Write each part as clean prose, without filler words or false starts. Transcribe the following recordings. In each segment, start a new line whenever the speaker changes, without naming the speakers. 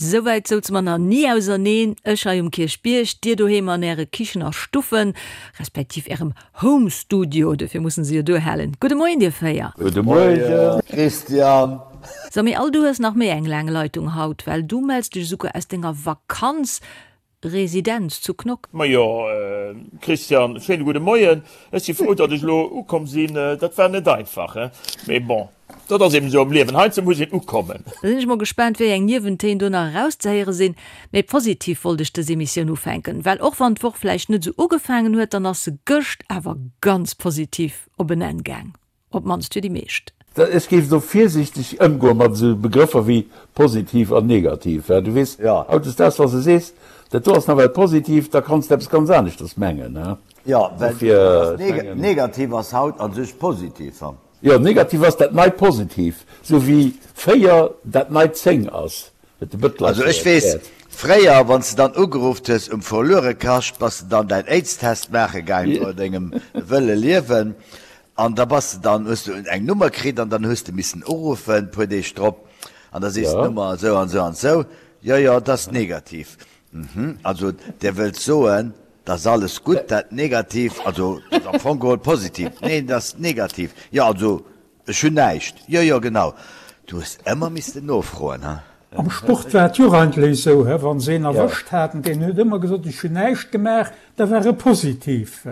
Souwäit souze mer nach ni auserneen, ech hei um Kierchbierg, dir doheem an äre Kichen a Stuffen, respektiv ärem Home Studio, duerfir mussen se jo duerhalen. Gudde Moien dir 4.
Gudde Moien
Christian.
So, mee all du hues nach méi eng laang Leitung haut, well du mells dech esouguer aus denger Vakanz Residenz zu Knock.
Majo Christian, schéine gudde Moien. Ech si frou, datt ech elo ukomm sinn. Dat war net einfach, he? Mee bon, dat ass eben esou am Liewen, heiansdo muss een ukommen.
Da sinn ech mol gespaant, wéi eng Niewentéin do nach erauszehéiere sinn. Mee positiv wollt ech dës Emissioun ufänken, well och wann d'Woch vläicht net esou ugefaangen huet, dann ass se gëscht awer ganz positiv op en Enn gaang. Op d'mannst fir déi meescht.
Ech géif do virsiichteg ëmgoe mat esou Begrëffer wéi positiv an negativ. Du weess, hautdesdaags, wa s de sees, dat do ass nawell positiv, da kanns de eppes ganz aneschters mengen.
Jo, well negativ ass haut a sech positiv.
Jo, negativ ass dat neit positiv, esou wéi 4 dat neit 10 ass. Huet de Bëttler
Also ech weess, fréier wann s de dann ugerufft hues um Verluerekascht, bass de dann däin Aids-Test maache gaang no dengem wëlle Liewen an da bass de dann, hues du eng Nummer kritt an dann hues de missen uruffen puer Deeg drop an da sees d'Nummer esou an esou an esou, jo jo, et ass negativ. Mhm, also Dir wëllt soen, et ass alles gutt, dat negativ, also et ass am Fong geholl positiv, neen et ass negativ, jo also Ech hunn näischt. Jo, jo, genau. Du hues ëmmer missten nofroen, he?
Am Sport war et jo och eigentlech esou, he, wa se een erwëscht haten, deen huet ëmmer gesot, ech hunn näischt gemaach, da war e positiv.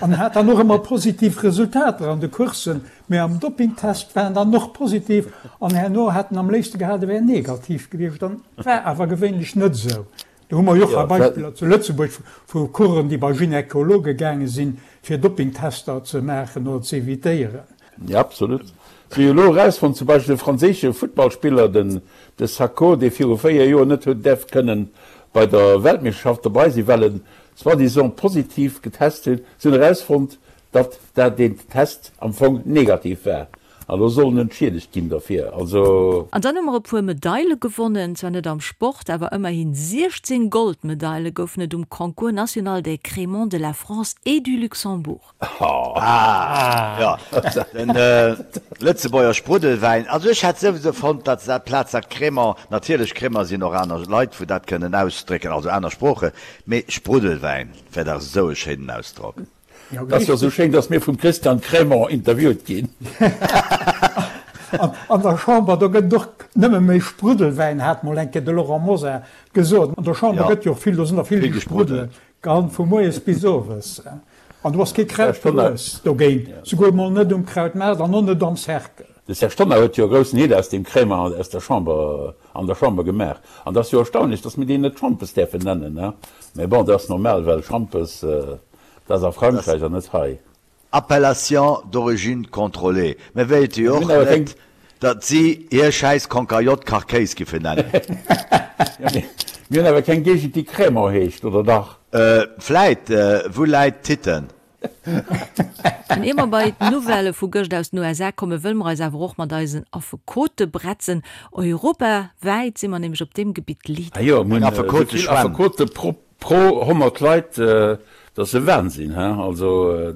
An hat dann och ëmmer positiv Resultater an de Courssen, mä am Doppingtest war en dann och positiv an herno hat en am léifste gehat, e wär negativ gewiescht. An war awer gewéinlech net esou. Do hu mer jo och hei Beispiller zu Lëtzebuerg vu Coursen, déi bei Gynekologe gaange sinn, fir Doppingtester ze maachen oder ze evitéieren.
Jo, absolut. Se hu jo elo erausfonnt, zum Beispill de franséische Futtballspiller, den de Sakho, dee viru 4 Joer net huet däerf kënnen bei der Weltmeeschterschaft dobei sinn, well en soi-disant positiv getest hunn. Se hunn erausfonnt, datt dat deen Test am Fong negativ war. An elo soll en entschiedegt ginn derfir. Also.
An dann hu mer e puer Medaile gewonnen, zwar net am Sport, awer ëmmerhin 16 Goldmedaile goufen et um Concours national des Crémants de la France et du Luxembourg.
Ah jo, den Lëtzebuerger Spruddelwäin. Also ech hätt souwisou fonnt, datt se dat Plaz dat Crémant, natierlech Crémant sinn och aner Leit wou dat kënnen ausdrécken, also aner Sproochen, mee Spruddelwäin wär dach esou e schéinen Ausdrock.
Et ass jo esou schéin, dass mir vum Christian Crémant interviewt ginn.
An der Chamber, do gëtt et och nëmme méi Spruddelwäin, hat mol eng Kéier de Laurent Mosar gesot. An der Chamber gëtt jo och vill, do sinn der vill déi spruddelen, gell, vu moies bis owes. An do ass kee Kraut gewuess dogéint, souguer mol net um Krautmaart an och net am Cercle.
De Serge Tonnar huet jo e groussen Heed aus deem Crémant aus der Chamber, an der Chamber gemaach. An et ass jo erstaunlech, dass mir deen net Schampes däerfen nennen, ne? Mä bon, dat ass normal, well Schampes, dat ass a Frankräich an net hei.
Appellation d'origine contrôlée. Mir wéilte jo och net, datt si hir schäiss Konkajotte Kachkéis giffen nennen.
Mir hunn awer keng Géigend, déi Crémant heescht, oder dach?
Vläit, Wou läit Titten?
An ier mer bei d'Nouvellë vu gëscht aus den USA kommen, wëlle mer eis awer och mat eisen Affekote bretzen. Europawäit si mer nämlech op deem Gebitt Leader.
Ah jo, mir hunn esou vill Affekote pro 100 Leit, dat ass e Wahnsinn, he? Also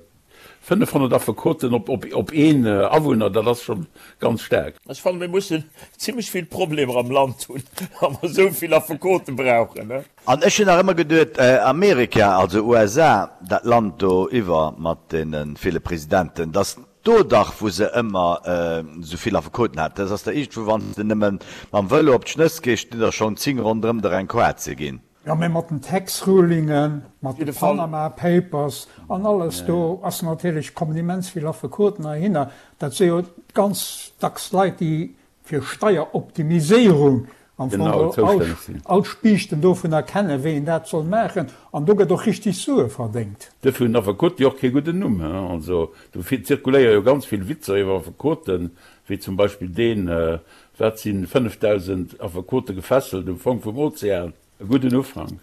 500 Affekoten op een Awunner, dat ass scho ganz staark.
Ech fannen, mir mussen zimmlech vill Problemer am Land hunn, wa mer esou vill Affekote brauchen, he?
An ech hunn nach ëmmer geduet, Amerika, also USA, dat Land do iwwer mat deene ville Presidenten, datt do dach, wou se ëmmer esou vill Affekoten haten. Dat ass der iergendwou, wann s de nëmme mam Vëlo op d'Schnëss gees, stinn der schonn 10 ronderëm der eng Koart ze ginn.
Jo, mä mat den Tax Rulingen, mat de Panama Papers an alles, do ass natierlech, kommen immens vill Affekoten heihinner. Dat si jo ganz dacks Leit, déi fir Steieroptimiséierung am Fong geholl all d'Spiichten dovunner kennen, wéi een dat soll maachen, an do gëtt och richtig Sue verdéngt.
Duerfir hunn Affekote jo och kee gudden Numm. Also do zirkuléiere jo ganz vill Witzer iwwer Affekoten, wéi zum Beispill deen, Wat sinn 5.000 Affekote gefesselt um Fong vum Ozean? E gudden Ufank.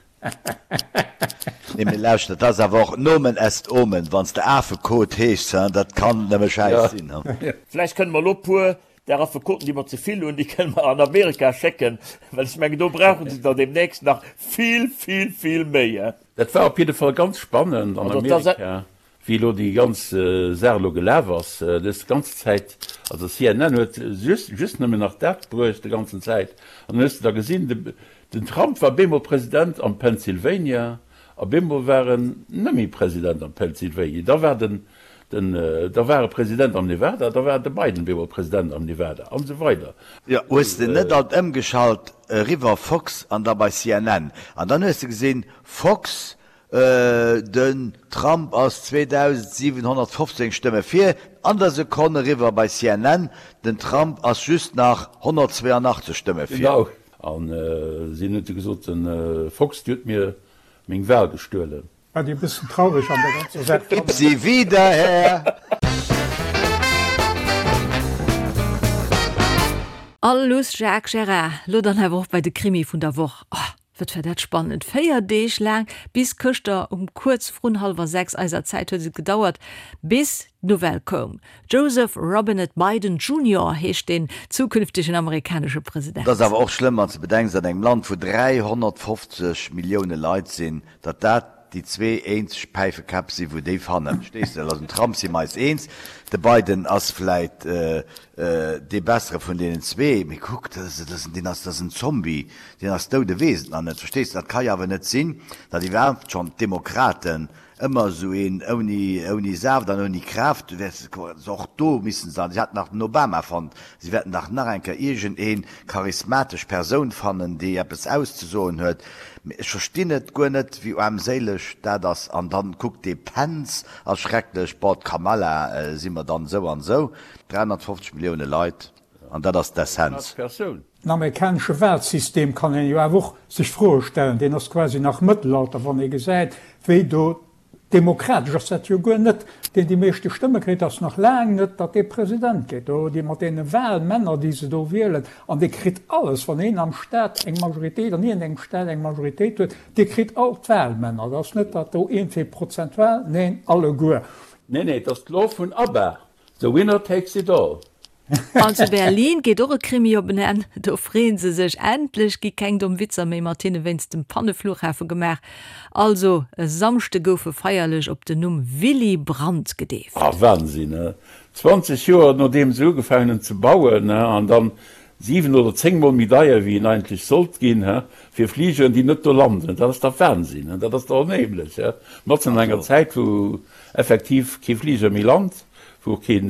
Nee, mee lauschter, dat ass awer och Nomen est Omen, wann s de Afekot heeschs, hein, dat kann nëmme Schäiss sinn,
hein. Vläicht kënne mer elo puer där Affekoten, déi mer ze vill hunn, déi kënne mer an Amerika schécken, well ech mengen, do brauche se der deemnächst nach vill, vill, vill méi, hein.
Dat war op jidde Fall ganz spannend an Amerika. Wéi elo déi ganz Saach elo gelaf ass, dës ganz Zäit, also CNN huet just just nëmmen nach dat bruecht de ganzen Zäit, an dann hues de da gesinn, de den Trump war bemol President am Pennsylvania a bemol war en net méi President am Pennsylvania, da war den den da war e President am Nevada, da war de Biden bemol President am Nevada an esou weider.
Jo, hues de net alt ëmgeschalt eriwwer Fox an da bei CNN an dann hues de gesinn Fox Den Trump ass 2.715 Stëmme vir, an der Sekonn eriwwer bei CNN, den Trump ass just nach 182 Stëmme vir.
Genau, an si hunn du gesot, de Fox, déi huet mir meng Wahl gestuelen.
Wat ech e bëssen traureg an der ganzer Saach
fannen. Gib sie wieder her!
A luss Jacques Gerard, lo dann awer och bei de Krimi vun der Woch. Oh, Wat war dat spannend! 4 Deeg laang, bis gëschter um kuerz vrun hallwer 6 eiser Zäit huet et gedauert, bis d'Nouvelle koum. Joseph Robinette Biden Junior heescht deen zukünftegen amerikanesche President.
Et ass awer och schlëmm, wann s de bedenks, an engem Land, wou 350 Millioune Leit sinn, datt dat déi zwee eenzeg Päifekäpp si wou déi fannen, verstees de? Also den Trump si mer eis eens, de Biden ass vläit dee bessere vun deenen zwee, mee kuck, dat ass, deen ass, dat ass en Zombie, deen ass dout, e weess et nach net, verstees de? Dat ka jo awer net sinn, datt iwwerhaapt schonn d'Demokraten ëmmer esou een ouni, ouni Saaft an ouni Kraaft, du wäerts och do missen se, si haten nach den Obama fonnt, si wäerten dach nach eng Kéier iergend een charismatesch Persoun fannen, déi eppes auszesoen huet. Mee ech verstinn et guer net, wéi aarmséileg dat ass. An dann kuck, dee Pence ass schrecklech, bon, d'Kamala si mer dann esou an esou. 350 Millioune Leit, an dat ass d'Essenz.
Den amerikanesche Wahlsystem kann een jo awer och sech Froe stellen. Deen ass quasi nach Mëttelalter, wann ee gesäit, wéi do Demokratesch ass dat jo guer net. Deen déi meeschte Stëmme kritt, ass nach laang net, datt dee President gétt. Do, déi mat deene Wahlmänner, déi se do wielen, an dee kritt alles. Wann een am Staat eng Majoritéit, an iergendengem Staat eng Majoritéit huet, dee kritt all d'Wahlmänner. Dat ass net, datt do iergendwéi prozentual, neen, alleguer.
Nee, nee, et ass d'Law vun ABBA, The winner takes it all.
An zu Berlin geet och e Krimi op en Enn. Do freeën se sech, endlech gi keng domm Witzer méi mat hinne wéinst dem Panneflughafe gemaach. Also e Samschde gouf e feierlech op den Numm Willy Brandt gedeeft.
Ah Wahnsinn, he? 20 Joer nodeem se ugefaangen hunn ze bauen, he, an dann 7 oder 10 mol méi deier wéi en eigentlech sollt ginn, he, fir Fligeren déi net do landen. Dat ass dach Wahnsinn, he? Dat ass dach onheemlech, he? Matzen an enger Zäit wou effektiv kee Fliger méi lant, wou och keen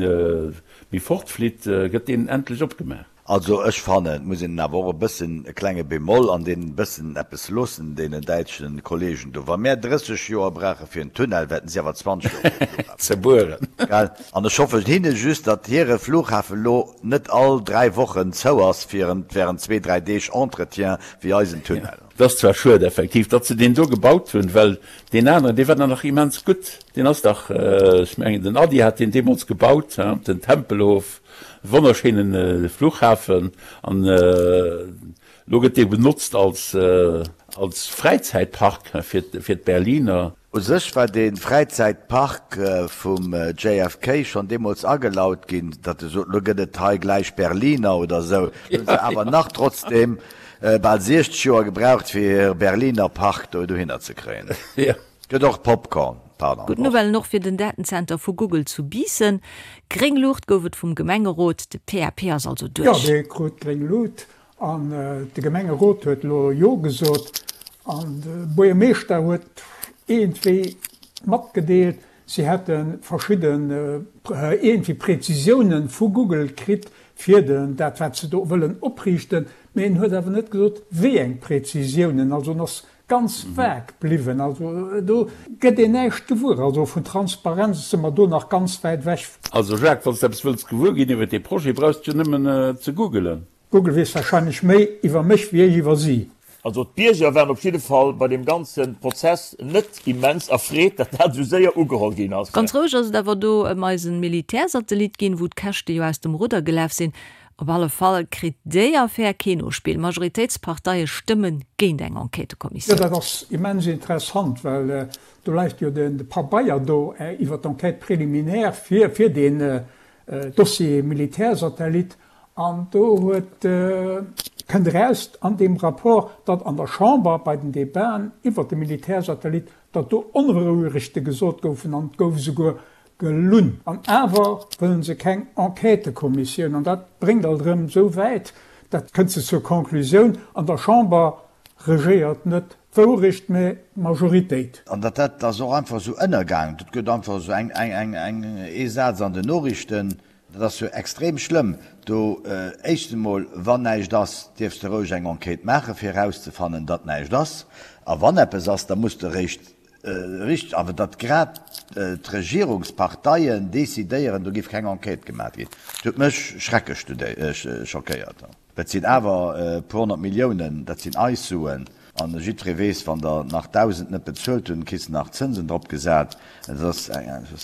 méi fortflitt, gëtt deen endlech opgemaach.
Also ech fannen, et muss een awer och e bëssen e klenge Bémol an deenen bëssen eppes loossen, deenen däitschen Kollegen do. Wa mär 30 Joer brauche fir en Tunnel, wäerten si awer 20 Joer fir e Flughafen
ze bueren.
Gell? An ech hoffen hinne just, datt hire Flughafen elo net all 3 Wochen zou ass fir während zwee, dräi Deeg Entretien wéi eisen Tunnel.
Et ass zwar schued effektiv, datt se deen do gebaut hunn, well deen aneren, dee war dann nach immens gutt. Deen ass dach, ech mengen den Ady hat deen deemools gebaut, den Tempelhof, e wonnerschéinen Flughafen. An elo gëtt dee benotzt als als Fräizäitpark fir fir d'Berliner.
U sech war dee Fräizäitpark vum JFK schonn deemools agelaut ginn, datt e sot, lo gëtt et hei gläich Berliner oder esou. Lo hunn se awer nach trotzdeem bal 60 Joer gebraucht, fir hire Berliner Park do dohinner ze kréien. Gëtt och Popcorn, pardon.
Gutt Nouvellen och fir den Datenzenter vu Google zu Biissen. Gréng Luucht gouf et vum Gemengerot, de PAP ass also
duerch. Jo, dee krut gréng Luut. An de Gemengerot huet elo Jo gesot. An de Buergermeeschter huet iergendwéi matgedeelt, si hätte verschidden iergendwéi Präzisiounen vu Google kritt fir den, dat wat se do wëllen opriichten. Mee en huet awer net gesot, wéi eng Präzisiounen. Also en ass ganz vague bliwwen. Also do gëtt een näischt gewuer. Also vun Transparenz si mer do nach ganz wäit ewech.
Also Jacques, wann s de eppes wëlls gewuer ginn iwwer dee Projet, brauchs de jo nëmmen ze googelen.
Google weess wahrscheinlech méi iwwer mech wéi ech iwwer si.
Also d'Bierger waren op jidde Fall bei deem ganze Prozess net immens erfreet, datt dat esou séier ugeholl ginn ass.
Ganz roueg ass et awer do ëm eisen Militärsatellit ginn, wou d'Käschte jo aus dem Rudder gelaf sinn. Op alle Fall kritt déi Affär kee Nospill. Majoritéitsparteie stëmme géint eng
Jo,
Enquêtëkommissioun.
dat ass immens interessant, well do läit jo de Pabeier do iwwer d'Enquête préliminaire fir fir deen Dossier Militärsatellit. An do huet, kënnt eraus an deem Rapport, datt an der Chamber bei den Debaten iwwert de Militärsatellit. datt do Onwourechte gesot goufen an et gouf esouguer gelunn. An awer wëllen se keng Enquêtëkommissioun. An dat bréngt alt erëm esou wäit, dat kënnt se zur Conclusioun, an der Chamber regéiert net d'Wourecht, mä d'Majoritéit.
An datt dat ass och einfach esou ënnergaangen. Dat gëtt einfach esou eng, eng, eng, ee Saz an den Noriichten. Dat ass jo extrem schlëmm. Do, éischtens emol, wann näischt ass, dierfs de roueg eng Enquête maachen, fir erauszefannen, datt näischt ass. A wann eppes ass, da muss de eréischt Richteg, awer datt grad d'Regierungsparteien decidéieren, do géif keng Enquête gemaat ginn, dat huet mech schrecklech schockéiert. Dat sinn awer e puer 100 Milliounen, dat sinn eis Suen, an jiddweree weess, wann der nach 1.000 net bezuelt hunn, kriss de nach Zënsen drop gesat, dat ass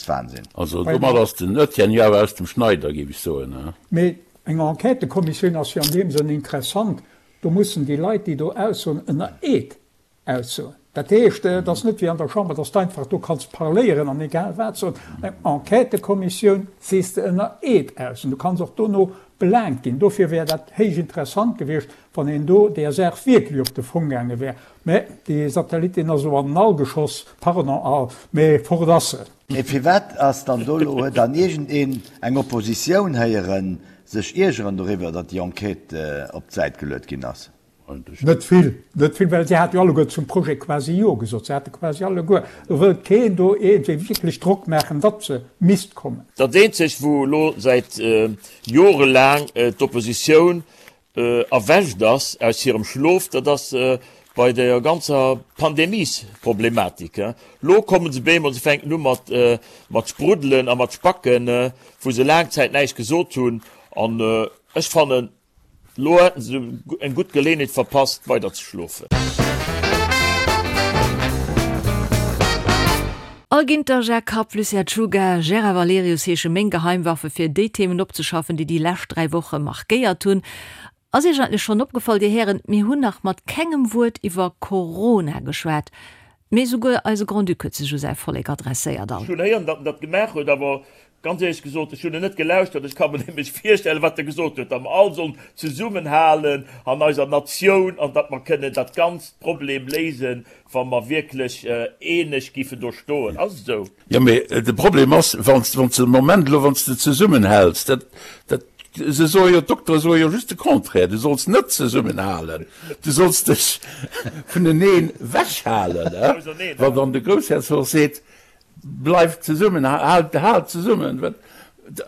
Wahnsinn.
Also domat ass den Etienne jo awer aus dem Schneider, géif ech soen.
Mee eng Enquêtëkommissioun ass jo an deem Sënn interessant, do mussen déi Leit, déi do aussoen, ënner Eed Aussoen. Dat heescht, et ass net wéi an der Chamber, dass de einfach do kanns parléieren an egal wat soen. Eng Enquêtëkommissioun sees de ënner Eed aus an du kanns och dono belaangt ginn. Dofir wär dat héich interessant gewiescht, wann een do där Saach wierklech op de Fong gaange wär. Mä dee Satellit, deen ass elo an den All geschoss, pardon, All, mä fort ass en.
Mee firwat ass dann do elo, huet dann iergendeen eng Oppositioun héieren sech iergeren doriwwer, datt déi Enquête op d'Säit geluet ginn ass?
Net vill, net vill, well si hate jo alleguer zum Projet quasi Jo gesot. Se hate quasi alleguer, do wëllt keen do iergendwéi wierklech Drock maachen, datt se misst kommen.
Dat eenzegt, wou elo säit jorelaang d'Oppositioun erwächt ass aus hirem Schlof, dat ass bei der ganzer Pandemiesproblematik. Elo kommen se bemol, se fänken u mat spruddelen a mat spacken, wou se laang Zäit näischt gesot hunn. An ech fannen, Lo hätten se eng gutt Geleenheet verpasst weider ze schlofen.
Al Ginter, Jacques Kapp, Lucien Czuga, Gérard Valerius heesche meng Geheimwaffe fir déi Themen opzeschaffen, déi déi lescht 3 Woche markéiert hunn. Ass Iech eigentlech schonn opgefall, Dir Hären, mir hunn nach mat kengem Wuert iwwer Corona geschwat. Mee souguer eise Grand-Duc huet sech u säi Vollek adresséiert. All.
Ech hunn héieren, datt en dat gemaach huet, awer ganz éierlech gesot, ech hunn en net gelauschtert. Ech ka mer nämlech virstellen, wat e gesot huet, datt mer all sollen zesummenhalen an eiser Natioun an datt mer kënnen dat ganzt Problem léisen, wa mer wierklech eeneg giffen do stoen. Ass et esou?
Jo, mee de Problem ass, wann s de de Moment elo, wann s de zesummenhäls, dat, dat, se soe jo, d'Doktere soe jo just de Contraire, du solls net zesummenhalen, du solls dech vuneneen wechhalen. Wann dann de Groussherzog seet, bleift zesummen, haalt, haalt zesummen, wat,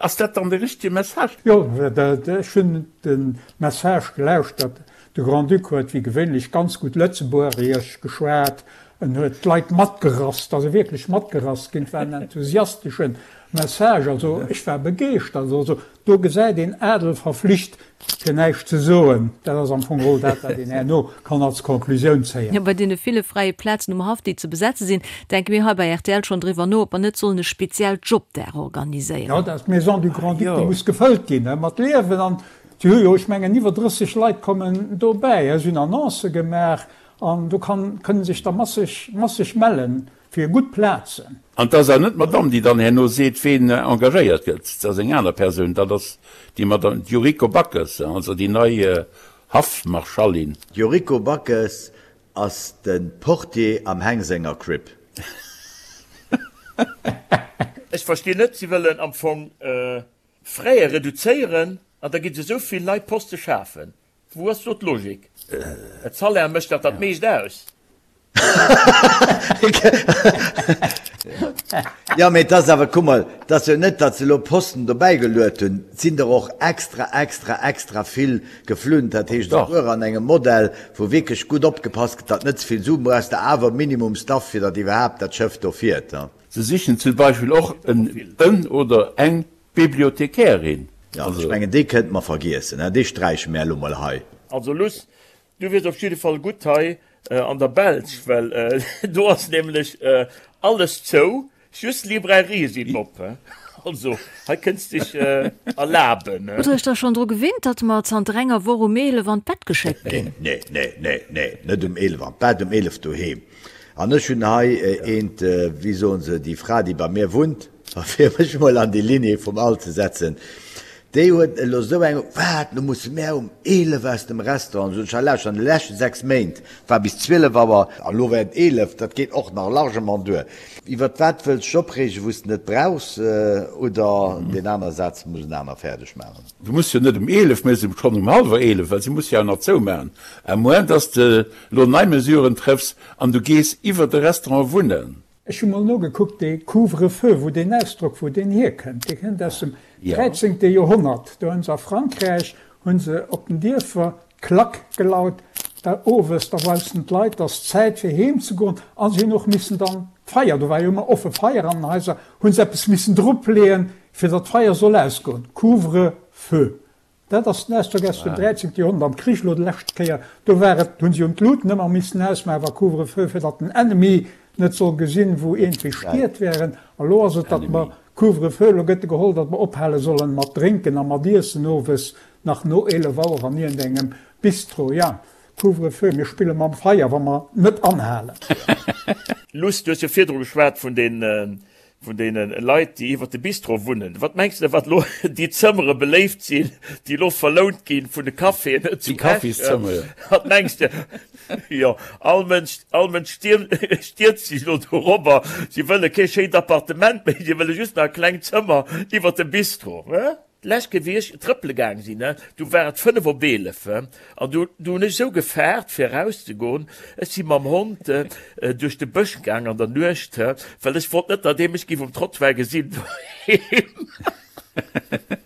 ass dat dann de richtege Message?
Jo, ech hunn de Message gelauschtert. De Grand-Duc huet wéi gewéinlech ganz gutt Lëtzebuergesch geschwat. En huet d'Leit matgerasst, ass e wierklech matgerasst ginn. Et war en enthusiastesche Message, also ech war begeeschtert. Also do gesäit een, Adel verflicht fir näischt ze soen. Dat ass am Fong geholl dat, wat een herno kann als Conclusioun zéien.
Jo, bei deene ville fräie Plazen um Haff, déi ze besetze sinn, denke mir hei bei rtl schonn driwwer no, ob mer net sollen e speziellt Jobdag organiséieren.
Jo, dat d'Maison du Grand-Duc, déi muss gefëllt ginn mat Liewen. An si hu jo, ech mengen, iwwer 30 Leit kommen dobäi. Si hunn Annoncë gemaach. An do kann, kënnen sech der masseg, masseg mellen fir gutt Plazen.
An 't ass awer net d'Madame, déi dann herno seet, ween engagéiert gëtt. 't ass eng aner Persoun, dat ass déi Madame Yuriko Backes, also déi nei Haffmarschallin.
D'Yuriko Backes ass de Portier am Heng senger Crib.
Ech verstinn net, si wëllen am Fong Fräe reduzéieren an da gi se esou vill nei Poste schafen. Wou ass do d'Logik? Et Salaire mécht dach dat meescht aus.
Jo, mee et ass awer, kuck mol, et ass jo net, datt se elo Posten dobäi geluet hunn. Et sinn der och extra, extra, extra vill geflunn. Dat heescht, esouguer an engem Modell, wou wierklech gutt opgepasst gëtt, datt net ze vill Suen, brauchs de awer minimum Staff, fir datt iwwerhaapt dat Schëff do fiert.
Se sichen zum Beispill och en oder eng Bibliothekärin.
Jo, ech mengen, déi kënnte mer vergiessen, hein, déi sträiche mär elo mol hei.
Also Luss, du wiers op jidde Fall gutt hei an der Belsch, well do ass nämlech alles zou, just Librairië sinn op. Also hei kënns dech erlaben.
Hutt der iech da schonn dru gewinnt, datt mer zanter enger Woch um 11 an d'Bett geschéckt ginn?
Nee, nee, nee, nee, net um 11 an d'Bett, um 11 doheem. An ech hunn hei eent, wéi soen se, déi Fra, déi bei mir wunnt, A fir mech mol an déi Lignée vum Al ze setzen. Déi huet elo esou eng, Wat, lo musse mär um 11 aus dem Restaurant? Sot ech, Hei lauschter, an de leschte 6 Méint war bis 12 Auer, an elo wär et 11, dat geet och nach largement duer. Iwwert wat wëlls dech opreegen, wou s de net brauchs? Oder deen anere Saz muss en aner fäerdeg maachen.
Du muss jo net um 11, mä schonn um hallwer 11, well si muss jo awer nach zoumaachen, à moins dass de elo nei Mesuren trëffs an du gees iwwer de Restaurant wunnen.
Ech hu mol nogekuckt, dee Couvre-feu, wou deen Ausdrock, wou deen hierkënnt, dee kënnt aus dem dräizéngte Joerhonnert. Do hunn se a Frankräich, hu se op den Dierfer d'Klack gelaut, da owes, da woussten d'Leit, dass Zäit fir heem ze goen, a se hunn och missen dann d'Feier, do war jo ëmmer offe Feier an den Haiser, hu se eppes missen dropleeën, fir datt d'Feier soll ausgoen, Couvre-feu. Dat ass den Ausdrock aus dem 13. Joerhonnert. Am Krich elo déi lescht Kéier, do war et, hunn se jo d'Luuten ëmmer missen ausmaachen, wa Couvre-feu, fir datt den Ennemi net soll gesinn, wou iergendwéi Stied wären. A lo ass et, datt mer Couvre-feu, elo gëtt e geholl, datt mer ophale sollen mat drénken a mat iessen owes nach no 11 Auer an iergendengem Bistro. Ja, Couvre-feu, mir spille mam Feier, wa mer net anhalen.
Luss, du hues jo virdru geschwat vun den Vun deene Leit, déi iwwert de Bistro wunnen. Wat mengs de, wat elo déi Zëmmere beléift sinn, déi elo verlount ginn vun de Caféen zu Esch? Wat mengs de? Jo, all Mënsch, all Mënsch stierzt sech elo dorobber. Si wëlle kee schéint Appartement méi, si wëlle just nach e klengt Zëmmer iwwert dem Bistro. D'lescht Kéier wéi ech trëppele gaang sinn, du war et 5 op 11 an du du hunn ech esou gefaart fir erauszegoen. Ech si mam Hond duerch de Bësch gaang an der Nuecht, well ech wollt net, datt ee mech géif um Trottoir gesinn doheem.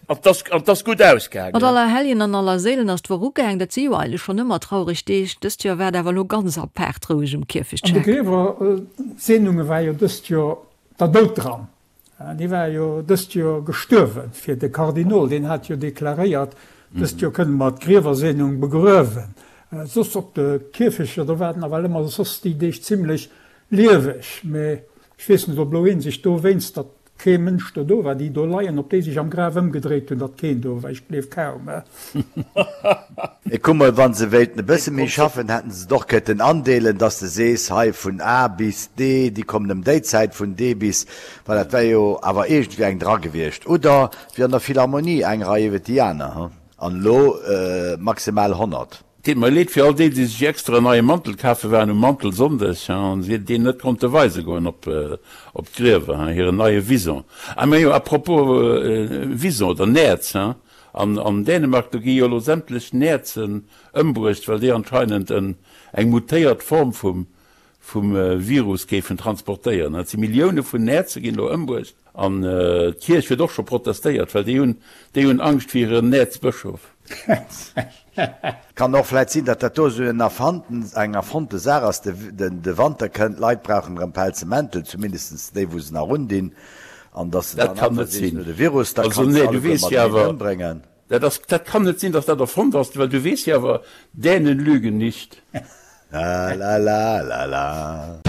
An 't ass an 't ass gutt ausgaangen.
Mat Allerhelljen an Allerséilen ass d'Woch ugaang. Dat si jo eigentlech schonn ëmmer traureg Deeg. Dëst Joer war et awer elo ganz apaart roueg um Kierfecht
An de Griewerseenunge war jo dëst Joer der Doud dran. Dee war jo dëst Joer gestuerwen, fir de Kardinol, deen hat jo deklaréiert, dëst Joer kënne mer d'Griewerseenung begruewen. Soss op de Kierfechter, do war et nawell ëmmer soss déi Deeg zimlech lieweg. Mee ech weess net, ob elo ee sech dowéinst, datt kee Mënsch do do war, déi do leien, ob déi sech am Graf ëmgedréit hunn, datt keen do war. Ech gleef kaum.
Mee kuck mol, wa se wéilten e bësse méi schaffen, hätten se et och kënnten andeelen, dass de sees, hei vun A bis D, déi kommen ëm déi Zäit, vun D bis, well dat wär jo awer iergendwéi eng dra gewiescht. Oder wéi an der Philharmonie, eng Rei iwwert déi aner, hu? An elo maximal 100.
Deet mer leed fir all déi, déi sech extra en neie Mantel kafe waren um Mantelsonndeg an deen net konnte weise goen op d'Griewer, hiren neie Vison. Ah majo, à propos Vison oder Nerz, An Dänemark, do gi jo elo sämtlech Näerzen ëmbruecht, well déi anscheinend eng mutéiert Form vum Virus géifen transportéieren. Et si Millioune vun Näerze ginn elo ëmbruecht. An d'Kierch huet och scho protestéiert, well déi hunn déi hunn Angscht fir hiren Näerzbëschof.
Kann och vläit sinn, datt dat do esou en erfannten, eng erfonnte Saach ass. De Wanter kënnt, d'Leit brauchen erëm pelze Mäntel, zumindest déi wou se nach undinn. An dass de
Dat
dann
kann
einfach
net
sees,
sinn.
no de Virus, da
Also
kanns de
nee, du
alleguer
weess jo
mateneen
awer,
ëmbréngen.
dat ass, dat kann net sinn, dass dat erfonnt ass, well du weess jo awer, Dänen lügen nicht.
La la la la la.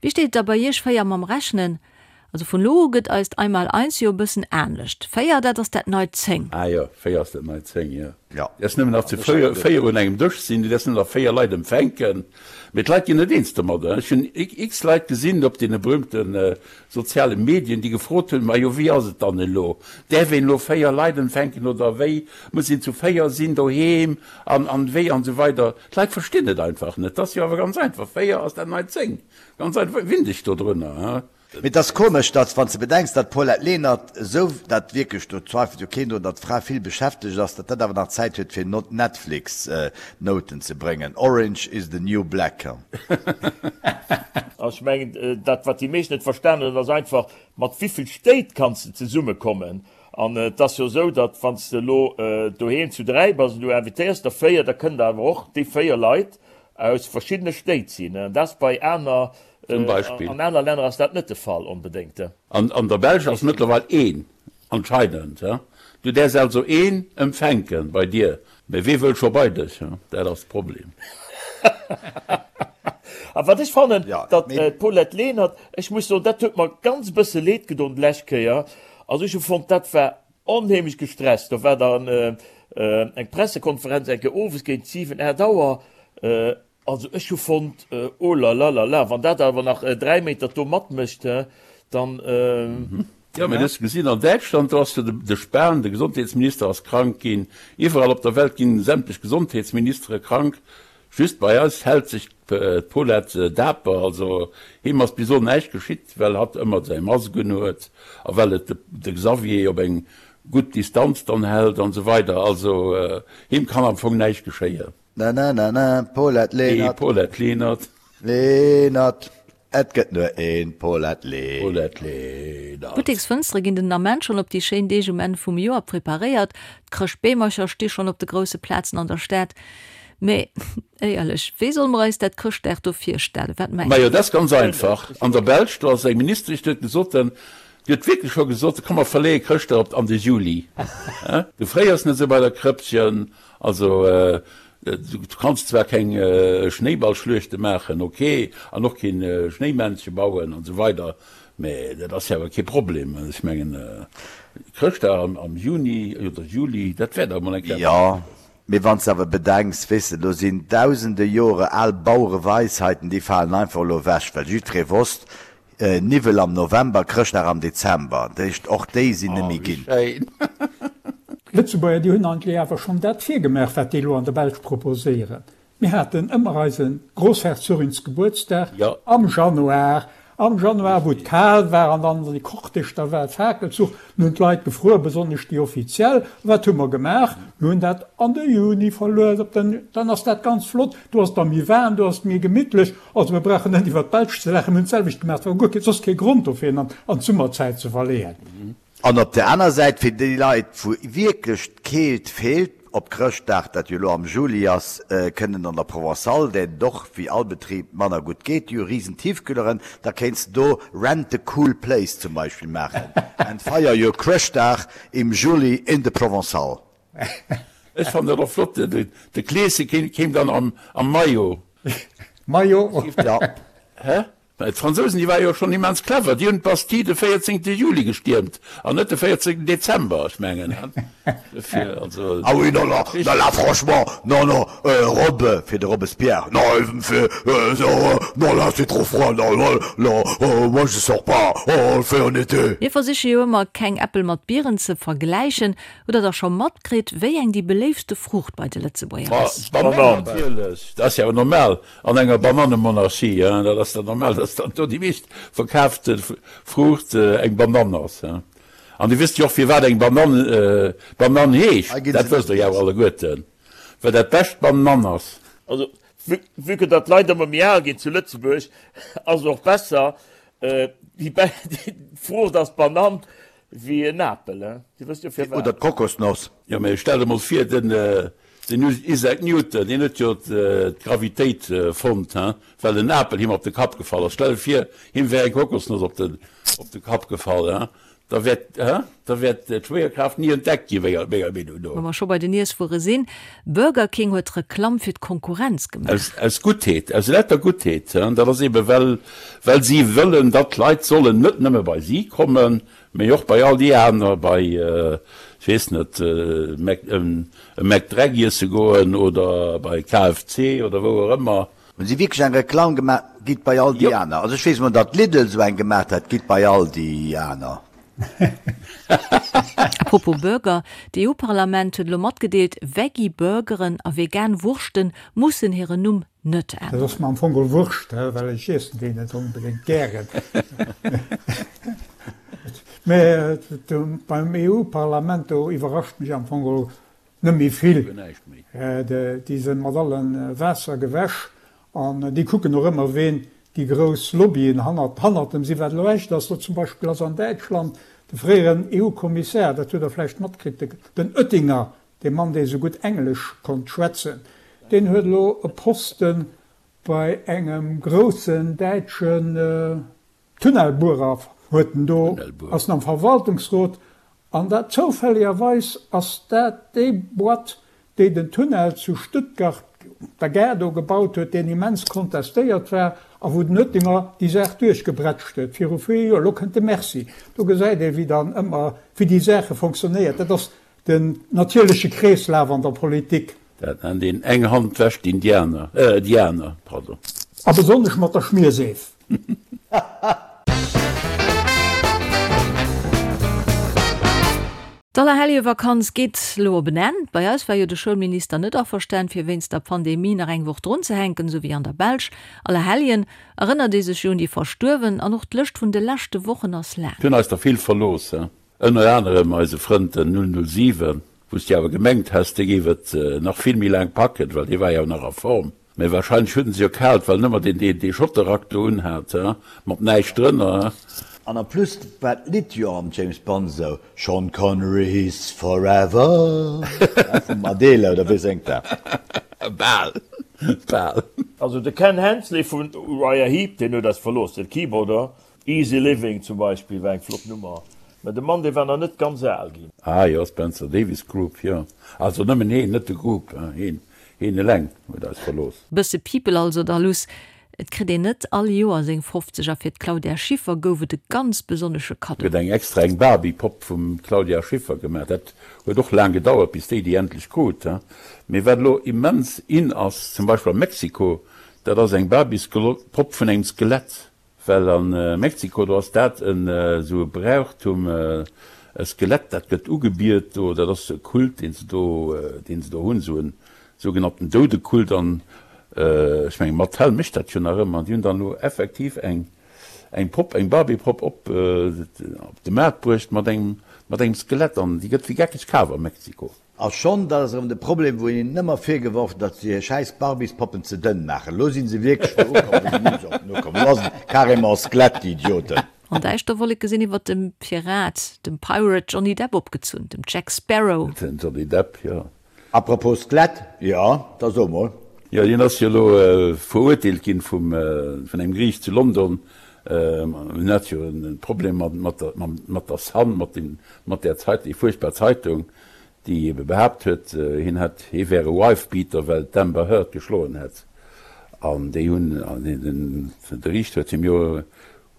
Wéi steet et da bei iech 4 mam Rechnen? Also vun elo u gëtt eist Einmaleins jo e bëssen anescht. 4, dat ass dat neit 10.
Ah jo, 4 ass dat neit 10, jo.
Jo.
Du däerfs nëmmen nach zu 4 un engem Dësch sinn, du däerfs nëmmen nach 4 Leit empfänken. Mee d'Leit ginn net eens domadder. Ech hunn x Leit gesinn op deene berühmte soziale Medien, déi gefrot hunn, Majo, wéi ass et dann elo? Däerf een elo 4 Leit empfänken oder wéi? Muss een zu 4 sinn doheem an an wéi an esou weider. D'Leit verstinn et einfach net. Et ass jo awer ganz einfach, 4 ass dat neit 10. Ganz einfach, winn dech dodrunner, he?
Mee et ass komesch, datt, wann s de bedenks, datt d'Paulette Lenert esou, dat wierklech, do zweifelt jo keen drun, datt d'Fra vill beschäftegt ass, datt dat awer nach Zäit huet fir Netflix-Nouten ze bréngen. Orange is the new black.
Ech mengen, dat wat déi meescht net verstanen hunn, ass einfach, mat wéivill Stéit kanns de zesummekommen? An et ass jo esou, datt wann s de elo doheem zu 3 bass an du invitéiers der 4, da kënnen der awer och déi 4 Leit aus verschiddene Stéit sinn. An dat ass bei aner
Zum Beispill.
An aner Länner ass dat net de Fall onbedéngt.
An an der Belsch ass mëttlerweil een anscheinend. Du däerfs also een empfänken bei dir, mä wee wëll scho bei dech? Dat ass de Problem.
A wat ech fannen, datt d'Paulette Lenert, ech muss soen, dat huet mer ganz e bësse leed gedon d'lescht Kéier. Also ech hu fonnt, dat war onheemlech gestresst. Do war dann eng Pressekonferenz eng Kéier owes géint 7, 8 Auer. Also ech hu fonnt, oh la la la la, wann dat awer nach 3 Meter do matmécht, he, Dann.
Jo, mee du hues gesinn, an Däitschland, do ass jo de Spahn, de Gesondheetsminister, ass krank ginn. Iwwerall op der Welt ginn sämtlech Gesondheetsministere krank. Just bei eis hält sech d'Paulette daper. Also him ass bis elo näischt geschitt, well hatt ëmmer säi Mask un huet a well et de Xavier op eng gutt Distanz dann hält an esou weider. Also him kann am Fong näischt geschéien.
Na na na na, Paulette Lenert.
Paulette Lenert.
Lenert, et gëtt nur een Paulette Lenert.
Paulette Lenert.
D'Butteksfënstere ginn den Ament schonn op déi schéin Deeg um Enn vum Joer preparéiert. D'Chrëschtbeemercher sti schonn op de grousse Plazen an der Stad. Mee éierlech, wéi solle mer eis dat Chrëschtdag do virstellen? Wat mengt
Majo, dat ass ganz einfach. An der Belsch, do ass eng Ministesch, déi huet gesot, déi huet wierklech scho gesot, komm mer verleeë Chrëschtdag op an de Juli. Du fréiers net esou bei der Krëppchen. Also du kanns zwar keng Schnéiballschluechte maachen, ok, an och keen Schnéimännche bauen an esou weider, mä dat ass jo awer kee Problem. Ech mengen Chrëschtdag am Juni oder Juli, dat wär dach emol eng Kéier eppes
Jo,
Schéines.
mee wann s de awer bedenks, weess de, do sinn dausende Jore al Bauereweisheiten, déi falen einfach elo ewech, well jiddweree wosst, Niwwel am November, Chrëschtdag am Dezember. Dat heescht, och déi sinn
Oh,
nemmi
wéi
ginn.
schéin!
D'Lëtzebuerger, déi hunn eigentlech awer schonn dat virgemaach, wat déi elo an der Belsch proposéieren. Mir haten ëmmer eise Grossherzoginsgebuertsdag
Jo.
am Januar, am Januar, wou et
Richtig.
kal war an dann de Cortège da war, Fakelzuch, Nun hunn d'Leit gefruer, besonnesch déi Offiziell. Wat hu mer gemaach? Mir hunn dat an de Juni verluecht. Op den, dann ass dat ganz flott, do ass et da méi waarm, do ass et méi gemittlech. Also mir brauchen net iwwert d'Belsch ze laachen, mir hunn d'selwecht gemaach. Et war guer kee, soss kee Grond dofir, en an d'Summerzäit ze verleeën.
An op der aner Säit, fir déi Leit, wou wierklech d'Keelt feelt, op Chrëschtdag, dat jo elo am Juli ass, kënnen an der Provençale, där et och wéi all Betrib manner gutt geet, déi hu risen Tiefkühleren, da kéints de do Rent the cool place zum Beispill maachen and feier your Chrëschtdag im Juli in the Provençale.
Ech fannen dat och flott, de Kleeschen kéim dann am Maillot.
Maillot?
Ja.
Hä? Mä d'Fransousen, déi ware jo schonn immens clever, déi hunn d'Bastille de 14. Juli gestiermt an net de 14. Dezember. Ech mengen, dofir, also.
Ah oui, non, non, non, là, franchement, non, non, Robe, fir de Robespierre, non, il me fait, non, là, c'est trop froid, non, non, non, moi, je sors pas, oh, on le fait en été.
Mir versiche jo ëmmer, keng Äppel mat Bieren ze vergläichen. Hutt der da scho matkritt, wéi eng déi beléiftste Fruucht bei de Lëtzebuerger ass?
D'Banann natierlech, dat ass jo awer normal. An enger Banannemonarchie, hein, dat ass dann normal, dass dann do déi meescht verkaafte Fruucht eng Banann ass, hein. An Dir wësst jo och, firwat eng Banann Banann heescht,
Hei ginn
dat
se
wësst
net
Der jo awer
giess.
alleguerten, well dat bescht Banann ass.
Also, vue, vue que datt d'Leit ëmmer méi al ginn zu Lëtzebuerg, ass et och besser, déi, déi Fruucht ass d'Banann wéi en Apel, hein. Dir wësst jo
Oder
firwat.
d'Kokosnoss.
Jo, mä stell der mol vir, den, Den Isaac Newton, deen huet jo d'Gravitéit fonnt, hein, well en Apel him op de Kapp gefall ass. Stell der vir, him wär eng Kokosnoss op de, op de Kapp gefall, hein, da wär, hein, da wär d'Schwéierkraaft ni entdeckt gi menger, menger Meenung no.
Wa mer scho bei den Iesswuere sinn, Burger King huet Reklamm fir d'Konkurrenz gemaach.
Aus, aus Guttheet, aus lauter Guttheet, hein, dat ass eebe well, well si wëllen, datt d'Leit sollen net nëmme bei si kommen, Mee och bei all déi aner, bei, ech weess net, e McDreck iesse goen oder bei KFC oder wou och ëmmer.
Hunn si wierklech eng Reklamm gemaach, gitt bei all déi aner? Also ech weess emol, datt Lidl esou eng gemaach hat, gitt bei all déi aner.
A propos Burger, D'EU-Parlament huet elo matgedeelt, Veggie-Burgeren a vegan Wurschte mussen hiren Numm net
Dat
änneren.
ass mer am Fong geholl Wurscht, well ech iessen déi net onbedéngt gären. Mä beim EU-Parlament, do iwwerrascht mech am Fong geholl net méi vill. Déi sinn mat alle Waasser gewäsch an déi kucken och ëmmer, ween déi grouss Lobbyen hannert hannert dem sinn. Wat elo echt ass, elo zum Beispill ass an Däitschland de fréieren EU-Kommissär, dat hutt Der vläicht matkritt, den Oettinger, Dee Mann, dee sou gutt Englesch konnt schwätzen, deen huet elo e Posten bei engem groussen däitschen Tunnelbuerer, huet en do, ass en am Verwaltungsrot, an dat zoufälligerweis ass dat déi Boîte, déi den Tunnel zu Stuttgart op der Gare do gebaut huet, deen immens kontestéiert war a wou den Oettinger déi Saach duerchgebrätscht huet viru vier Joer. Elo kënnt de Merci. Do gesäit ee wéi dann ëmmer, wéi déi Saache fonctionnéiert. Dat ass Den natierleche Kreeslaf an der Politik.
Dat nennt een eng Hand wäscht d'Indianer, äh, déi aner, pardon.
A besonnesch mat der Schmierseef.
D'Allerheljevakanz geet elo op en Enn. Bei eis war jo de Schoulminister net averstan, fir wéinst der Pandemie nach eng Woch drunzehänken, esou wéi an der Belsch. Allerhelljen erënnert ee sech jo un déi Verstuerwen an och d'Lëscht vun de leschte Wochen ass laang.
Et hunn eis der vill verlooss, ënner anerem eise Frënd den 007, wou s de awer gemengt häss, dee géif et nach vill méi laang packen, well dee war jo nach a Form. Mee wahrscheinlech hunn se jo kalt, well nëmmer deen deen dee Schotterrack do unhat, he, mat näischt drënner, he.
An en plus war d'Lidd jo am James Bond esou, Sean Connery's forever, he, vum Adele, oder wee séngt dat?
Bal, bal.
Also de Ken Hensley vun Uriah Heep, deen huet eis verlooss, den Keyboarder. Easy Living zum Beispill war eng flott Nummer, mä de Mann dee war nach net ganz al ginn.
Ah jo, Spencer Davis Group, jo. Also nëmmen heen, net de Group, heen, heen eleng huet eis verlooss.
Bësse People also da luss. Et kritt een net all Joer seng 50 a fir d'Claudia Schiffer gouf et e ganz besonnesche Kaddo.
Huet eng extra eng Barbie-Popp vum Claudia Schiffer gemaach. Dat huet och laang gedauert bis déi déi endlech krut. Mee wat elo immens in ass, zum Beispill a Mexiko, dat ass eng Barbies-Popp vun engem Skelett. Well a Mexiko, do ass dat esou e Brauchtum, e Skelett, dat gëtt ugebiet do, dat ass e Kult, deen se do, deen se do hunn, esou e sougenannten Doudekult. An ech mengen, Mattel mécht dat jo nach ëmmer, an déi hunn dann elo effektiv eng, eng Popp, eng Barbie-Popp op de Maart bruecht mat engem, mat engem Skelett, an déi gëtt wéi geckeg kaf a Mexiko.
A schonn, dat ass erëm de Problem, wou een hinnen ëmmer virgeworf huet, datt se hir schäiss Barbiespoppen ze dënn maachen. Elo si se wierklech do ukomm, wou se ni sollten ukommen. Elo ass et carrément Skelett, déi Idioten.
An däischter Wolleke sinn iwwer dem Pirat, dem Pirate Johnny Depp opgezunn, dem Jack Sparrow.
Den Johnny Depp, jo.
Apropos Skelett, jo, da so mol.
Jo, hien ass jo elo verurteelt ginn vum, vun engem Geriicht zu London. Hien hat jo e Problem mat der, mat der Sun, mat dem, mat där Zeit, déi fuerchtbar Zeitung, déi ebe behaapt huet, hien hätt, hie wär e Wife-Beater, well d'Amber Heard geschloen hätt. An déi hunn, den, de Riichter huet him jo,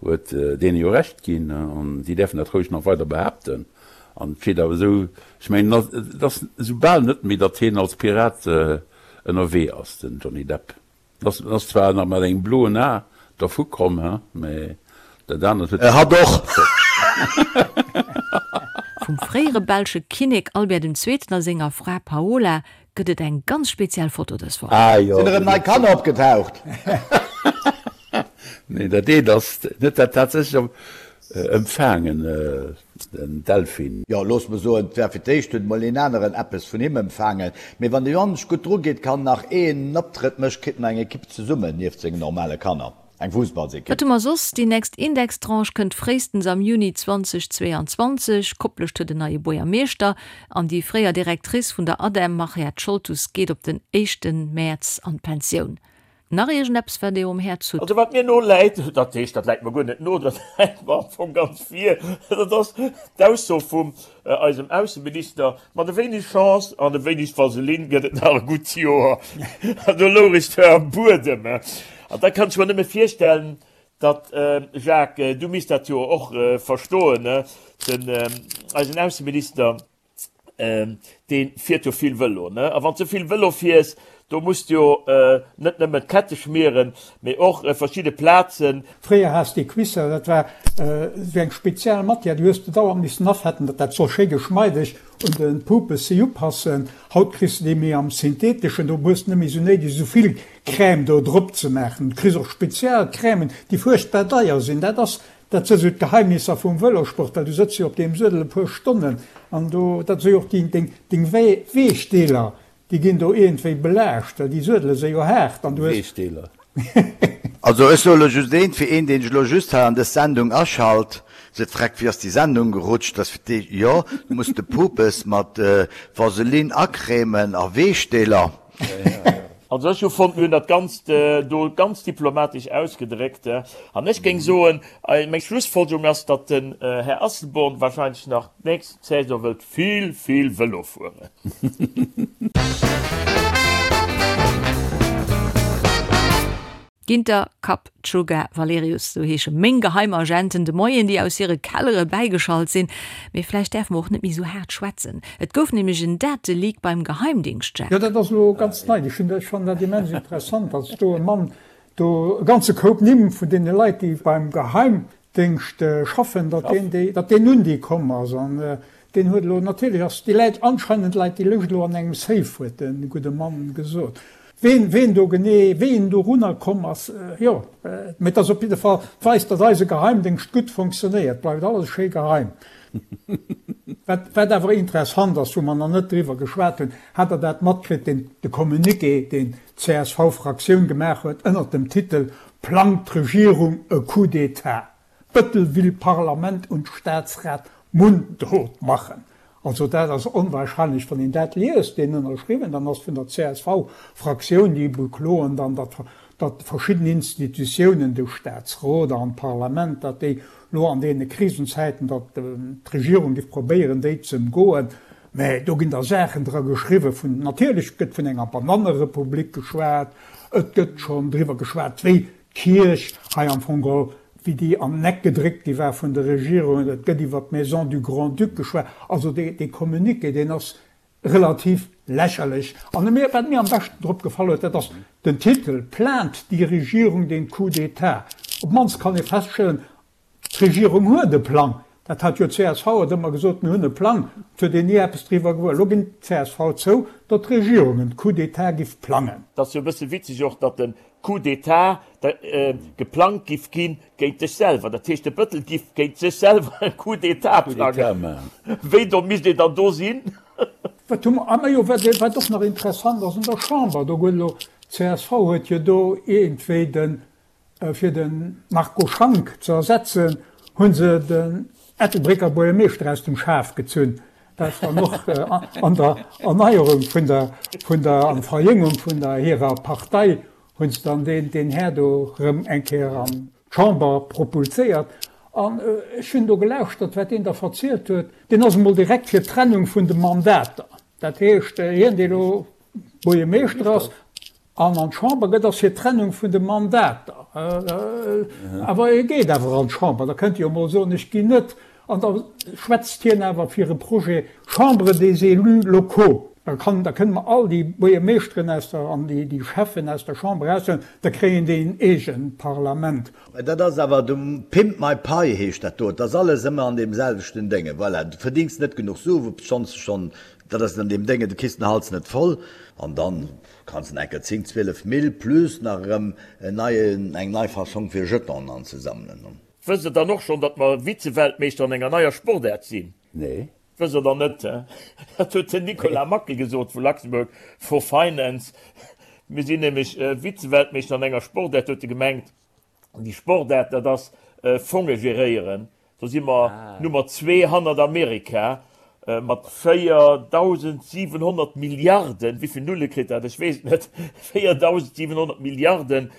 huet deene jo Recht ginn, an si däerfen dat roueg nach weider behaapten. An et steet awer esou, ech mengen, et ass esou bal net méi, datt hien als Pirat ënnerwee ass, den Johnny Depp. En ass zwar nach mat engem bloen A dervu komm, he, mä dat anert huet.
Hatt och!
Vum fréiere belsche Kinnek Albert den Zweeten a senger Fra Paola gëtt et eng ganz speziell Foto dës Woch.
Ah jo.
Sinn erëm nei Kanner opgetaucht?
Nee, dat eent ass net dat tatsächlech empfaangen. Den Delfin.
Jo, looss mer soen, 't war fir d'éischt huet mol een aneren eppes vun him empfaangen. Mee wann de Johannes gutt dru geet, kann nach een Optrëtt mécht, kritt en eng Ekipp zesummen, nieft sengen normale Kanner, eng Fussballsekipp.
Wat hu mer soss? Déi nächst Indextranche kënnt fréistens am Juni 2022. Koplescht huet en neie Buergermeeschter an déi fréier Directrice vun der ADEM, Mariette Scholtus, geet op den éischte Mäerz an d'Pensioun. Nach iergendeppes wat dir um Häerz hutt?
Also wat mir no läit, dat heescht dat läit mer guer net no, dat läit mer am Fong ganz vir, dat ass d'Ausso vum eisem Ausseminister, mat e wéineg Chance an e wéineg Vaseline gëtt et nach e gutt Joer. An do louch ech zwar am Buedem. An da kann ech mer nëmme virstellen, datt, Jacques, du misst dat jo och verstoen, den eisen Ausseminister, dee fiert jo vill Vëlo, ne? A wann s de vill Vëlo fiers, do muss de jo net nëmmen d'Kette schmieren, mee och verschidde Plazen.
Fréier has de Cuisser, dat war esou eng speziell Matière, déi hues de dauernd missen afetten, datt dat soll schéi geschmeideg un de Pupes si upassen. Haut kriss de déi méi am Syntheteschen, do hues de net méi esou néideg esou vill Crème do drop ze maachen. Du kriss och spezial Crèmen, déi fuerchtbar deier sinn. Dat ass Dat si sou d'Geheimnisser vum Vëlosport, well du sëtz jo op deem Suedel e puer Stonnen an do, dat si jo och déi, deng, deng Weechdeeler, déi ginn do iergendwéi belaascht, well déi Suedele si jo haart an du hues.
Weechdeeler.
Also ech soe lo just eent, fir een deen sech lo just hei an dës Sendung aschalt, seet, Freck, wéi ass déi Sendung gerutscht, dass fir d'éischt, jo, du muss de Pupes mat Vaseline acrèmen a Weechdeeler.
Also ech hu fonnt, mir hunn dat Ganzt do ganz diplomatesch ausgedréckt. An ech géing soen, meng Schlussfolgerung ass, datt den Här Asselborn wahrscheinlech nach d'nächst Saison wëllt vill, vill Vëlo fueren.
Ginter, Kapp, Tschugga, Valerius, sou heesche meng Geheimagenten de Moien, déi aus hire Kellere bäigeschalt sinn. Mee vläicht däerfe mer och net méi sou haart schwätzen. Et gouf nämlech en Dateleak beim Geheimdingscht, Jacques.
Jo, dat ass elo ganz nei. Ech hunn, ech fannen dat immens interessant, dass do e Mann do e ganze Koup Nimm vun deene Leit, déi beim Geheimdéngscht schaffen, datt deen déi, datt deen un déi komm ass. An. Deen huet elo, natierlech ass déi läit, anscheinend läit déi Lëscht elo an engem Safe, huet de gudde Mann gesot. Ween, ween do genee, wéi en dorunner komm ass, jo, mee et ass op jidde Fall, et weist, datt eise Geheimdéngscht gutt fonctionnéiert, bleift alles schéi geheim. Wat, wat awer interessant ass, wou mer nach net driwwer geschwat hunn, hat Der dat matkritt, deen, de Communiqué, deen d'CSV-Fraktioun gemaach huet ënnert dem Titel Plangt d'Regierung e Coup d'État? Bëttel will Parlament und Staatsrat mundtot machen. Also dat ass onwahrscheinlech, wann een dat liest, deen ënnerschriwwen dann ass vun der CSV-Fraktioun, déi bekloen dann, datt datt verschidden Institutiounen, de Staatsrot an d'Parlament, datt déi lo an deene Krisenzäiten, datt d'Regierung géif probéieren, déi ze ëmgoen. Mä do ginn da Saachen dra geschriwwen vun, natierlech gëtt vun enger Banannerepublik geschwat, et gëtt schonn driwwer geschwat, wéi D'Kierch hei am Fong geholl, wéi déi an den Eck gedréckt gi war vun der Regierung, et gëtt iwwer d'Maison du Grand-Duc geschwat, also dee Communiqué, deen ass relativ lächerlech. An mir, wat mir am beschten drop gefall huet, dat ass den Titel, Plant die Regierung den Coup d'État? Op d'mannst kann ee feststellen, D'Regierung huet e Plang. Dat hat jo d'CSV huet ëmmer gesot, mir hunn e Plang. Et huet een ni eppes driwwer gewuer. Elo ginn d'CSV zou, datt d'Regierung en Coup d'État giff plangen.
Et ass jo e bësse witzeg och, datt de Coup d'État geplangt giff ginn géint dech selwer. Dat heescht, de Bëttel giff géint sech selwer e Coup d'État plangen. Wéi domm misst een dann do sinn?
Wat hu mer? Ah majo, wat och nach interessant ass, an der Chamber, do huet elo d'CSV huet jo do iergendwéi den Fir de Marco Schank ze ersetzen, hu se den Ettelbrécker Buergermeeschter aus dem Schaf gezunn. Dat ass dann och an der Erneierung vun der, vun der, an Verjéngung vun der hirer Partei hu se dann deen, deen Här do erëm eng Kéier an d'Chamber propulséiert. An ech hunn do gelauschtert, wat deen da verzielt huet. Deen ass emol direkt fir d'Trennung vun de Mandater. Dat heescht, hien, dee elo Buergermeeschter ass, An an d'Chamber gëtt, ass fir d'Trennung vun de Mandater. Awer e geet awer an d'Chamber, da kënnt e jo emol soen, ech ginn net. An da schwätzt hien awer fir e Projet Chambre des élus locaux. Da kann, da kënne mer all déi Buergermeeschteren aus der, an déi, déi Schäffen aus der Chamber eraushuelen, da kréien déi en eegent Parlament.
Mä dat ass awer de Pimp my pie heescht dat do. Et ass alles ëmmer an deem selwechten Dénge. Voilà, du verdéngs net genuch Su, obschonns de schonn, dat ass an deem Dénge, du kriss den Hals net voll an dann Kanns en enker 10, 12 Mill plus nach erëm en neien, eng nei Fassong fir Jetonen anzesammelen.
Wësst der dann och schonn, datt mer Vize-Weltmeeschter an enger neier Sportaart sinn?
Nee.
Wësst der dann net, he? Dat huet den Nicolas Mackel gesot vu Luxembourg for Finance. Mir sinn nämlech Vize-Weltmeeschter an enger Sportaart, huet e gemengt. An déi Sportaart, dat ass Fonge geréieren. Do si mer Nummer zwee hannert Amerika mat 4.700 Milliarden, wéi vill Nulle kritt dat, ech weess et net, 4.700 Milliarden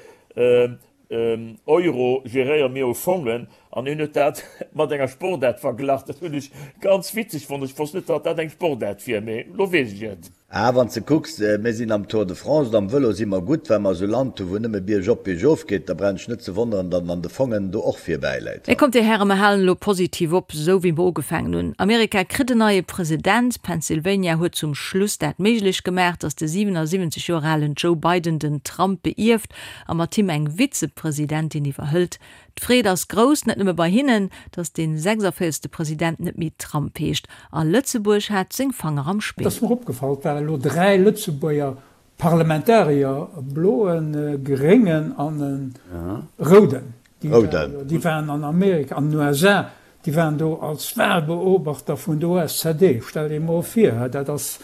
Euro geréiere mir u Fongen. An hien huet dat mat enger Sportaart verglach. Dat hunn ech ganz witzeg fonnt. Ech wosst net, datt dat eng Sportaart wier, mee elo weess ech et.
Ah, wann s de kucks, mir sinn am Tour de France oder am Vëlo si mer gutt, well mer esou Land hu wou nëmme biergop, biergof geet, da brauch ech net ze wonneren, datt en an de Fongen do och virbäi läit.
Mee kommt Dir Hären, mer halen elo positiv op, esou wéi mer ugefaangen hunn. Amerika kritt en neie President, Pennsylvania huet zum Schluss dat méiglech gemaach, datt de 77 Joer alen Joe Biden den Trump beierft a mat him eng Vizepresidentin iwwerhëlt. D'Freed ass grouss, net nëmme bei hinnen, datt dee 46. President net méi Trump heescht. A Lëtzebuerg hat seng Fanger am
Et
Spill.
ass mer opgefall, et ware elo 3 Lëtzebuerger Parlamentarier, e bloen, e gréngen an e rouden. Déi waren an Amerika, an den USA, déi waren do als Wahlbeobachter vun der OSZE. Stell dir emol vir, dat ass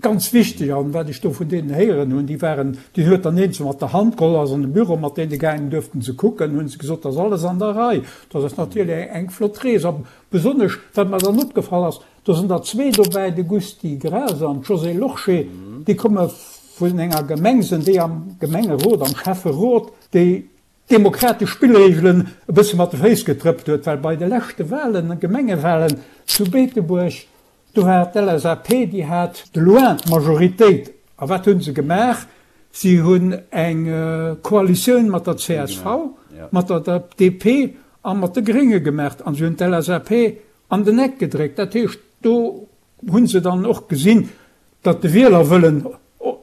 Ganz wichteg, an wat ech do vun deenen héieren hunn, déi waren, deen huet dann eenzel mat der Hand geholl, ass an de Büro mat deene gaangen, duerften se kucken, hunn se gesot, dat ass alles an der Rei. Dat ass natierlech eng flott Rees. A besonnesch, wat mer dann opgefall ass, do sinn der zwee dobäi, de Gusty Graas an d'Josée Lorsché, déi komme vun enger Gemeng, sinn déi am Gemengerot, am Schäfferot, déi d'demokratesch Spillreegelen e bësse mat de Féiss getrëppt huet, well bei de leschte Wahlen, Gemengewahlen zu Beetebuerg, Do war d'LSAP, déi hat de loin d'Majoritéit. A wat hu se gemaach? Si hunn eng Koalitioun mat der csv, mat der DP a mat de Grénge gemaach a se hunn d'LSAP an den Eck gedréckt. Dat heescht, do hu se dann och gesinn, datt de Wielerwëllen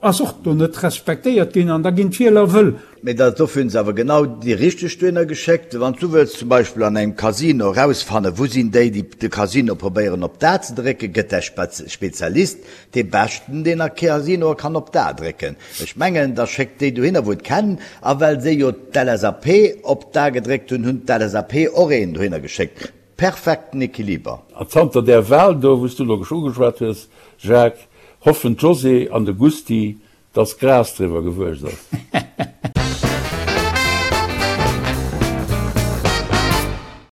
ass och do net respektéiert ginn an da ginn d'Wieler wëll.
Mee da dofir hunn se awer genau déi richteg dohinner geschéckt. Wann s du wëlls zum Beispill an engem Casino erausfannen, wou sinn déi, déi de Casino probéieren op d'A ze drécken, gëtt däi Spezialist dee Beschten, deen a Casinoe kann op d'A drécken. Ech mengen, da schéckt déi dohinner, wou et kennen. A well se jo d'LSAP op d'A gedréckt hunn, hunn d'LSAP och een dohinner geschéckt. Perfekten Equiliber.
A zanter där Wahl do, wou s du elo ugeschwat hues, Jacques, hoffen d'Josée an de Gusty, dass Gras driwwer gewuess ass.